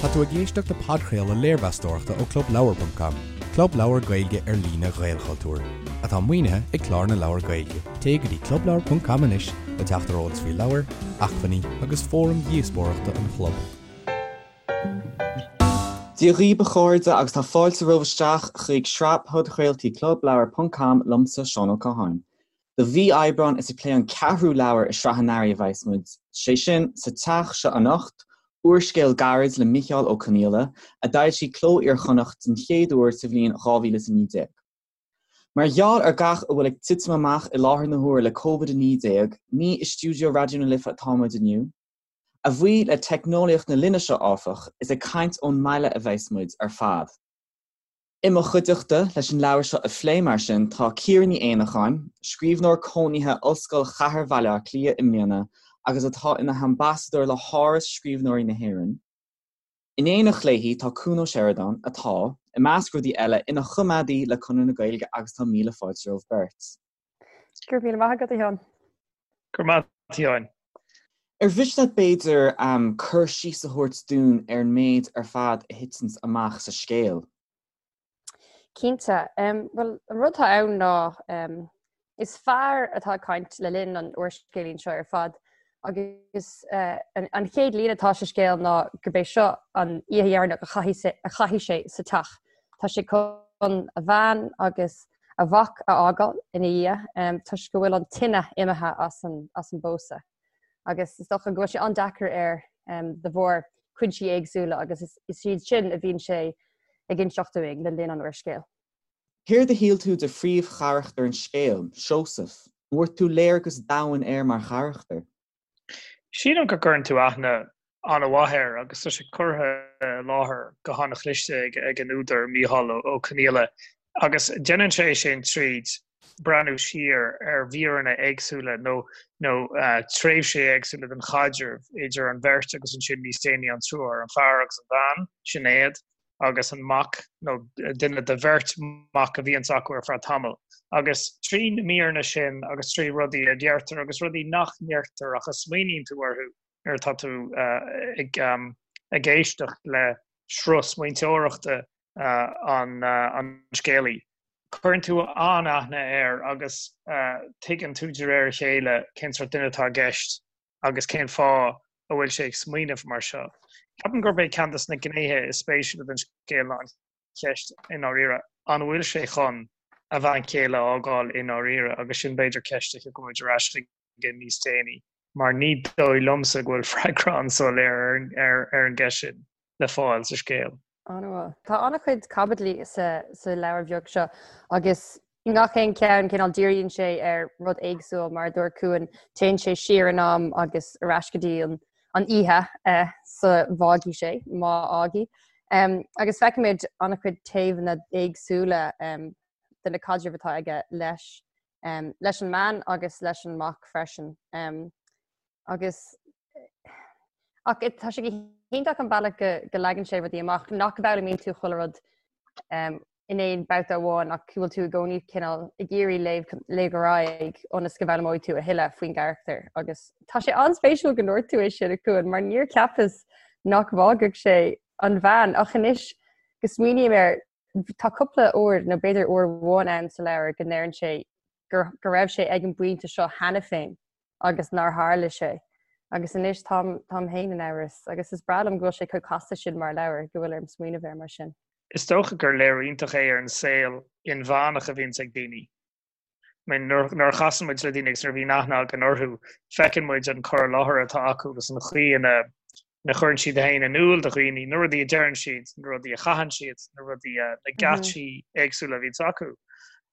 Tá tú ag éisteacht le podchraoladh léirmheastóireachta ó ClubLeabhar.com, club leabhar Gaeilge ar líne Ghaelchultúir, atá maoinithe ag Clár na Leabhar Gaeilge. Téigh go dtí clubleabhar.com anois le teacht ar eolas faoi leabhair, acmhainní agus fóraim dhíospóireachta an chlub. Dia dhaoibh a chairde agus tá fáilte romhaibh isteach chuig sraith podchraoltaí ClubLeabhar.com liomsa Seán Ó Catháin. Do mhí Aibreáin is ag plé an ceathrú leabhar i sraith an Earraigh a bheas muid, sé sin, Sa Teach Seo Anocht, úrscéal gairid le Micheál Ó Conghaile, a d'fhoilsigh Cló Iar-Chonnacht den chéad uair sa bhliain 2019. Mar gheall ar gach a bhfuil ag titim amach i láthair na huaire le Covid-19, ní i stiúideo Raidió na Life atá muid inniu. A bhuí le teicneolaíocht na linne seo, áfach, is ag caint ón mbaile a bheas muid ar fad. I mo chuideachta leis an leabhar seo a phlé, mar sin, tá Ciara Ní Éanacháin, scríbhneoir cónaithe Ollscoil Chathair Bhaile Átha Cliath i mbliana agus atá ina hambasadóir le hÁras Scríbhneoirí na hÉireann. In éineacht léi tá Cuan Ó Seireadáin, atá, i measc rudaí eile, ina choimeádaí le Conradh na Gaeilge agus tá míle fáilte romhaibh beirt. Go raibh míle maith agat, a Sheáin. Go raibh maith agat, a Sheáin. Ar mhiste leat b'fhéidir cur síos a thabhairt dúinn ar an méid ar fad a thiteanns amach sa scéal? Cinnte. Bhuel, an rud atá ann ná is fear atá ag caint le linn an úrscéilín seo ar fad agus an chéad líne atá sa scéal ná gurb é seo an oíche dheireanach a chaithfidh sé sa teach. Tá sé chun a bhean agus a mhac a fhágáil ina dhiaidh toisc go bhfuil an tine imithe as an bpósadh. Agus is dócha go bhfuil sé an-deacair air de bharr cúinsí éagsúla agus is iad sin a bhíonn sé ag inseacht dúinn le linn an úrscéil. Céard a shíl tú de phríomhcharachtar an scéil, Seosamh? An bhfuair tú léargas domhain air mar charachtar? Sílim go gcuireann tú aithne an-mhaith air agus tá sé curtha i láthair go han-chliste ag an údar, Micheál Ó Conghaile, agus déanann sé sin tríd breathnú siar ar mhíreanna éagsúla nó nó tréimhsí éagsúla den chaidreamh idir an bheirt agus ansin níos déanaí an triúr, an fear agus an bhean, Sinéad. agus an mac, nó duine de bheirt mac a bhíonns acu ar feadh tamaill. Agus trí na míreanna sin agus trí rudaí a deirtear agus rudaí nach ndeirtear ach a smaoiníonn tú orthu nuair atá tú ag éisteacht le sruth smaointeoireachta an scéalaí, cuireann tú an-aithne air agus tuigeann tú de réir a chéile cén sórt duine atá i gceist. agus cén fáth a bhfuil sé ag smaoineamh mar seo. Ceapaim gurb é ceann de na gnéithe is spéisiúla den scéal ná an cheist i ndáiríre, an bhfuil sé chun a bhean chéile a fhágáil i ndáiríre? Agus sin b'fhéidir ceist a thiocfaidh muid ar ais chuige níos déanaí, mar ní dóigh liomsa go bhfuil freagra an-soiléir ar an gceist sin le fáil sa scéal. An-mhaith. Tá an-chuid caibidlí sa leabhar bheag seo agus i ngach aon cheann cineál díríonn sé ar rud éagsúil mar a dúirt Cuan, téann sé siar in am agus ar ais go dtí an oíche sa bhfágfaidh sé, má fhágfaidh. Agus feicimid an-chuid taobhanna éagsúla de na caidrimh atá aige leis leis an mbean agus leis an mac freisin. Agus ach tá sé go hiontach an bealach go go leagann sé rudaí amach nach bhfoghlaimíonn tú chuile rud um, in aon babhta amháin ach go bhfuil tú i gcónaí cineál ag iarraidh léamh léamh ar aghaidh ionas go bhfoghlaimeoidh tú a thuilleadh faoin gcarachtar agus tá sé an-spéisiúil go ndúirt tú é sin a Chuain mar níor cheapas nach bhfágfadh sé an bhean ach anois go smaoiním air tá cúpla uair nó b'fhéidir uair amháin ann sa leabhar go ndeireann sé go go raibh sé ag an bpointe seo cheana féin agus nár tharla sé. Agus anois táim táim féin in amhras agus is breá liom go bhfuil sé chomh casta sin mar leabhar go bhfuil orm smaoineamh air mar sin. Is dócha gur léiriú iontach é ar an saol inmheánach a bhíonns ag daoine. I mean, nuair nuair a chasann muid le daoine agus nuair a bhíonn aithne againn orthu, feiceann muid an cur i láthair atá acu agus an chaoi ina ina chuireann siad féin in iúl do dhaoine, na rudaí a deireann siad, na rudaí a chaitheann siad, na rudaí a, na geáitsí éagsúla a bhíonns acu.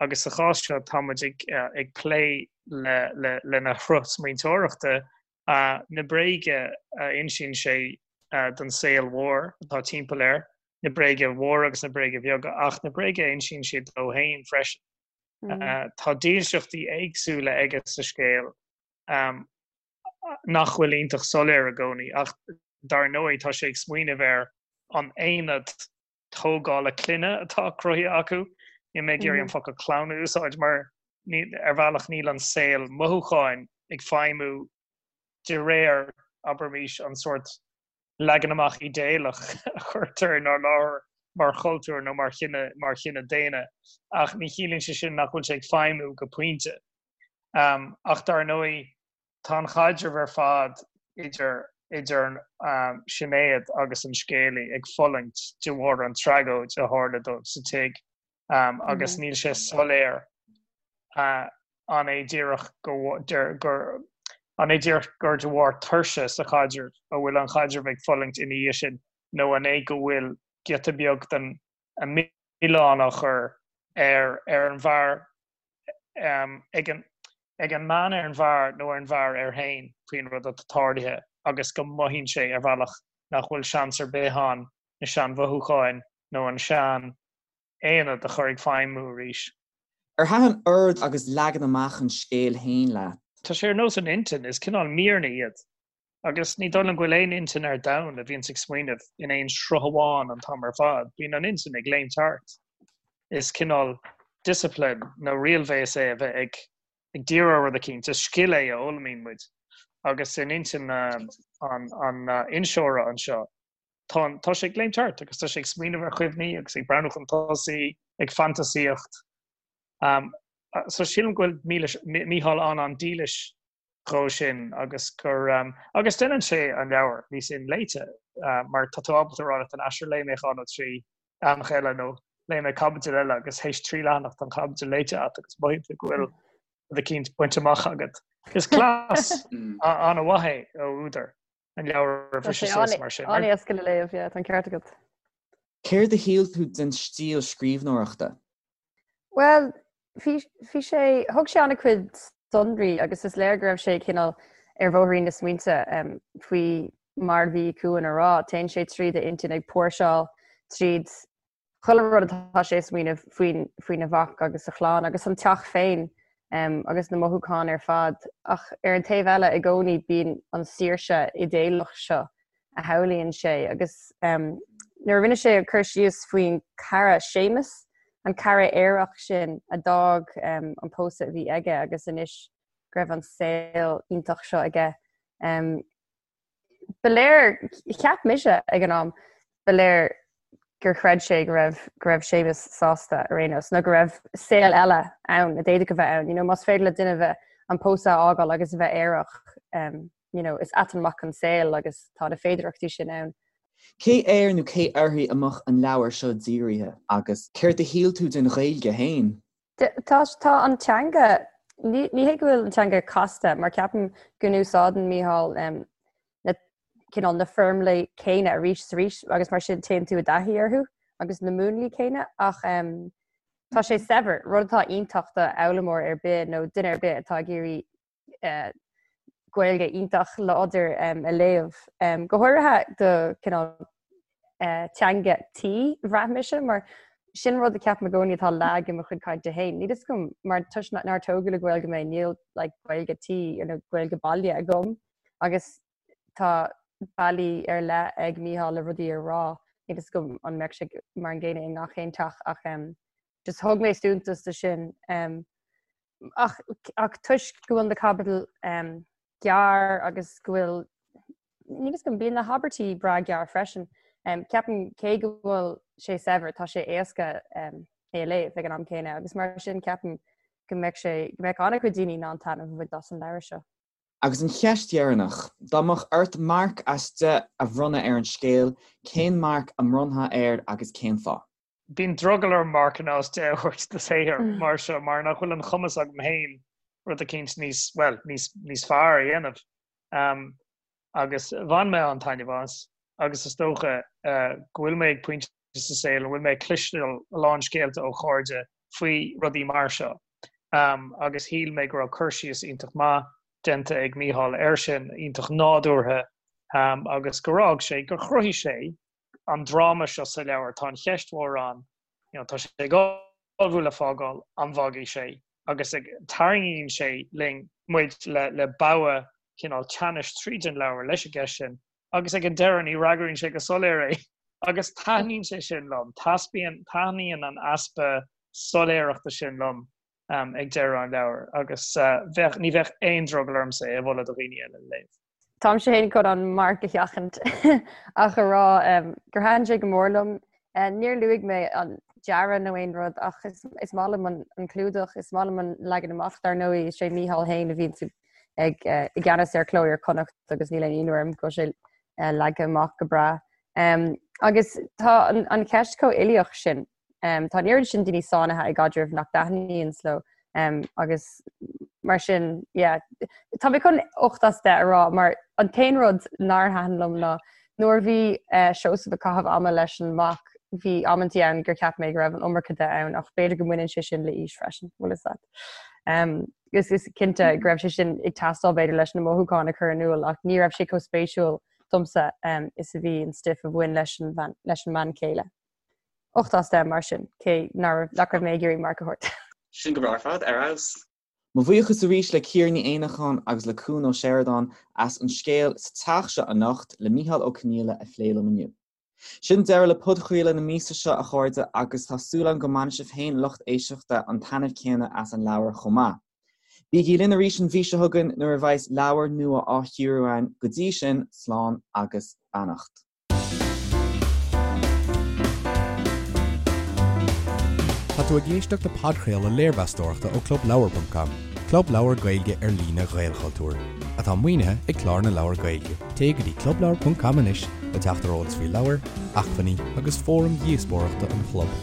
Agus sa chás seo tá muid ag, ag plé le, le, lena shruth smaointeoireachta, na bréaga a insíonn sé don saol mhór atá timpeall air, na bréaga mhóra agus na bréaga bheaga, ach na bréaga a insíonn sé dó féin freisin. Tá dílseachtaí éagsúla aige sa scéal. nach bhfuil iontach soiléir i gcónaí, ach dar ndóigh tá sé ag smaoineamh ar an aonad tógála clainne atá cruthaithe acu. Níl mé ag iarraidh an focal clann a úsáid mar ar bhealach níl an saol mothúcháin ag feidhmiú de réir, abraimis, an sórt. Leagan amach idéalach a chuirtear inár láthair mar chultúr nó mar chine, mar chine daonna, ach ní chiallaíonn sé sin nach bhfuil sé ag feidhmiú go pointe. Ach dar ndóigh, tá an chaidreamh ar fad idir idir Sinéad agus an scéalaí ag fulaingt de bharr an tragóid a tharla dóibh sa tigh agus níl sé soiléir An é díreach gur An é díreach gur de bharr tuirse sa chaidreamh a bhfuil an chaidreamh ag fulaingt ina dhiaidh sin nó an é go bhfuil giota beag den mhilleán á chur ar ar an bhfear ag an ag an mbean ar an bhfear nó ar an bhfear air féin faoin rud atá tarlaithe agus go mothaíonn sé ar bhealach nach bhfuil seans ar bith ann na seanmhothúcháin nó an sean aonad a chur ag feidhmiú arís. Ar thaitin ord agus leagan amach an scéil féin leat? Tá sé ar nós an intinn, is cineál míreanna iad. Agus ní dóigh liom go bhfuil aon intinn ar domhan a bhíonns ag smaoineamh in aon sruth amháin an t-am ar fad. Bíonn an intinn ag léimt thart. Is cineál discipline nó riailbhéas é a bheith ag ag díriú ar rud eicínt. Is scil é a fhoghlaimíonn muid. Agus in intinn an inseora anseo, Tá, tá sé ag léimt thart agus tá sé ag smaoineamh ar chuimhní agus ag breathnú chun tosaigh, ag fantasaíocht. Um, so sílim go bhfuil Mílis, Mícheál an-an-dílis dhó sin agus gur, um, agus déanann sé an leabhar níos inléite, uh, mar tá tú ábalta a rá leat an aistear léigh mé dhá nó trí leathanach eile nó léigh mé caibidil eile agus théis trí leathanach tá an chaibidil léite agat agus mothaíonn tú go bhfuil rud eicínt bainte amach agat. Is cleas an-mhaith é ó údar. an leabhar a bhriseadh suas mar sin. An-éasca le léamh, yeah, tá an ceart agat. Céard a shíl tú den stíl scríbhneoireachta? Bhuel, bhí, bhí sé, thug sé an-chuid sonraí agus is léir go raibh sé cineál ar bhóithrín na smaointe um, faoi mar a bhí Cuan a rá, téann sé tríd a intinn ag póirseáil tríd chuile rud atá sé ag smaoineamh faoin, faoina mhac agus a chlann agus an teach féin agus na mothúcháin ar fad. Ach ar an taobh eile, i gcónaí bíonn an saoirse idéalach seo a shamhlaíonn sé agus nuair a rinne sé cur síos faoin cara Séamus, an cara aerach sin a d'fhág an pósadh a bhí aige agus anois go raibh an saol iontach seo aige. Ba léir, cheap mise ag an am, ba léir gur chreid sé go raibh go raibh Séamus sásta ar aon nós, nó go raibh saol eile ann a d'fhéadfadh a bheith ann. You know, más féidir le duine bheith an pósadh a fhágáil agus a bheith aerach, um, you know, is ait an mac an saol agus tá na féidearthachtaí sin ann. Cé air nó cé uirthi a mbeadh an leabhar seo dírithe agus céard a shíl tú den Ghaeilge féin? Tá tá an teanga, ní ní hé go bhfuil an teanga casta, mar ceapaim go n-úsáideann Mícheál um, na cineál na foirmlí céanna arís is arís agus mar sin téann tú i dtaithí orthu agus na múnlaí céanna ach um, tá sé saibhir, rud atá iontach do fhoghlaimeoir ar bith nó duine ar bith atá ag iarraidh Gaeilge iontach láidir a léamh. Go háirithe do cineál teanga tí, bhraith mise, mar sin rud a ceapaim i gcónaí atá lag i mo chuid cainte féin. Níl fhios agam mar toisc nár tógadh le Gaeilge mé, níl like Gaeilge tí nó Gaeilge baile agam agus tá bealaí ar leith ag Mícheál le rudaí a rá. Níl fhios agam an mbeadh sé mar an gcéanna i ngach aon teach ach just thug mé suntas do sin. Ach, ach toisc go bhfuil na caibidil um, gearr agus go bhfuil níl fhios agam bíonn na habairtí breá gearr freisin. Um, ceapaim cé go bhfuil sé saibhir tá sé éasca um, é a léamh ag an am céanna agus mar sin ceapaim go mbeadh sé go mbeadh an-chuid daoine in ann taitneamh a bhaint as an leabhar seo. Agus an cheist dheireanach, dá mbeadh ort marc as 10 a bhronnadh ar an scéal, cén marc a mbronnfá air agus cén fáth? Bíonn drogall orm marcanna as 10 a thabhairt do shaothar mar seo mar nach bhfuil an chumas agam féin rud eicínt níos, bhuel, níos, níos fearr a dhéanamh. Um, agus bhain mé an-taitneamh as agus is dócha uh, go bhfuil mé ag pointe sa saol a bhfuil mé ag cloisteáil a lán scéalta ó chairde faoi rudaí mar seo. Um, agus shíl mé go raibh cur síos iontach maith déanta ag Mícheál air sin, iontach nádúrtha, um, agus gur fhág sé, gur chruthaigh sé an dráma seo sa leabhar, tá an cheist mhór ann, you know, tá sé ag ullmhú le fágáil, an bhfágfaidh sé? Agus ag, tarraingíonn sé linn, muid le, le bogha cineál teannais tríd an leabhar leis an gceist sin, agus ag an deireadh ní fhreagraíonn sé go soiléir é. Agus taitníonn sé sin liom, taispeáin, taitníonn an easpa soiléireachta sin liom um, ag deireadh an leabhair, agus uh, bheadh, ní bheadh aon drogall ormsa é a mholadh do dhaoine eile le léamh. Táimse féin chun an marc a sheachaint ach a rá gur thaitin sé go mór liom. Níor luaigh mé an dearadh nó aon rud ach is maith liom an clúdach, is maith liom an leagan amach. Dar ndóigh, is é Mícheál féin a bhíonn ag i gceannas ar Cló Iar-Chonnacht agus níl aon ionadh orm go bhfuil sé leagtha amach go breá. Agus tá an cheist chomh uilíoch sin. Tá an oiread sin daoine sáinnithe i gcaidrimh nach dtaitníonn leo agus mar sin, yeah. Tá mé chun 8 as 10 a rá mar an t-aon rud nár thaitin liom ná nuair a bhí Seosamh ag caitheamh ama leis an mac, bhí amantaí ann gur cheap mé go raibh an iomarca de ann ach b'fhéidir go mbaineann sé sin le aois freisin, bhfuil fhios agat. Is is cinnte go raibh sé sin ag teastáil b'fhéidir leis na mothúcháin a chur in iúl ach ní raibh sé chomh spéisiúil domsa is a bhí an stuif a bhain leis an leis an mbean chéile. 8 as 10 mar sin, cé nach raibh mé ag iarraidh marc a thabhairt. Sin go breá ar fad, ar fheabhas. Mo bhuíochas arís le Ciara Ní Éanacháin agus le Cuan Ó Seireadáin as an scéal Sa Teach Seo Anocht le Mícheál Ó Conghaile a phlé liom inniu. Sin deireadh le podchraoladh na míosa seo, a chairde, agus tá súil agam go mbainfidh sibh féin, lucht éisteachta, an taitneamh céanna as an leabhar chomh maith. Bígí linn arís an mhí seo chugainn nuair a bheas leabhar nua á chíoradh againn. Go dtí sin, slán agus beannacht. Tá tú ag éisteacht le podchraoladh léirmheastóireachta ó ClubLeabhar.com, club leabhar Gaeilge ar líne Ghaelchultúir, atá maoinithe ag Clár na Leabhar Gaeilge. Téigh go dtí clubleabhar.com anois le teacht ar eolas faoi leabhair, acmhainní agus fóraim dhíospóireachta an chlub.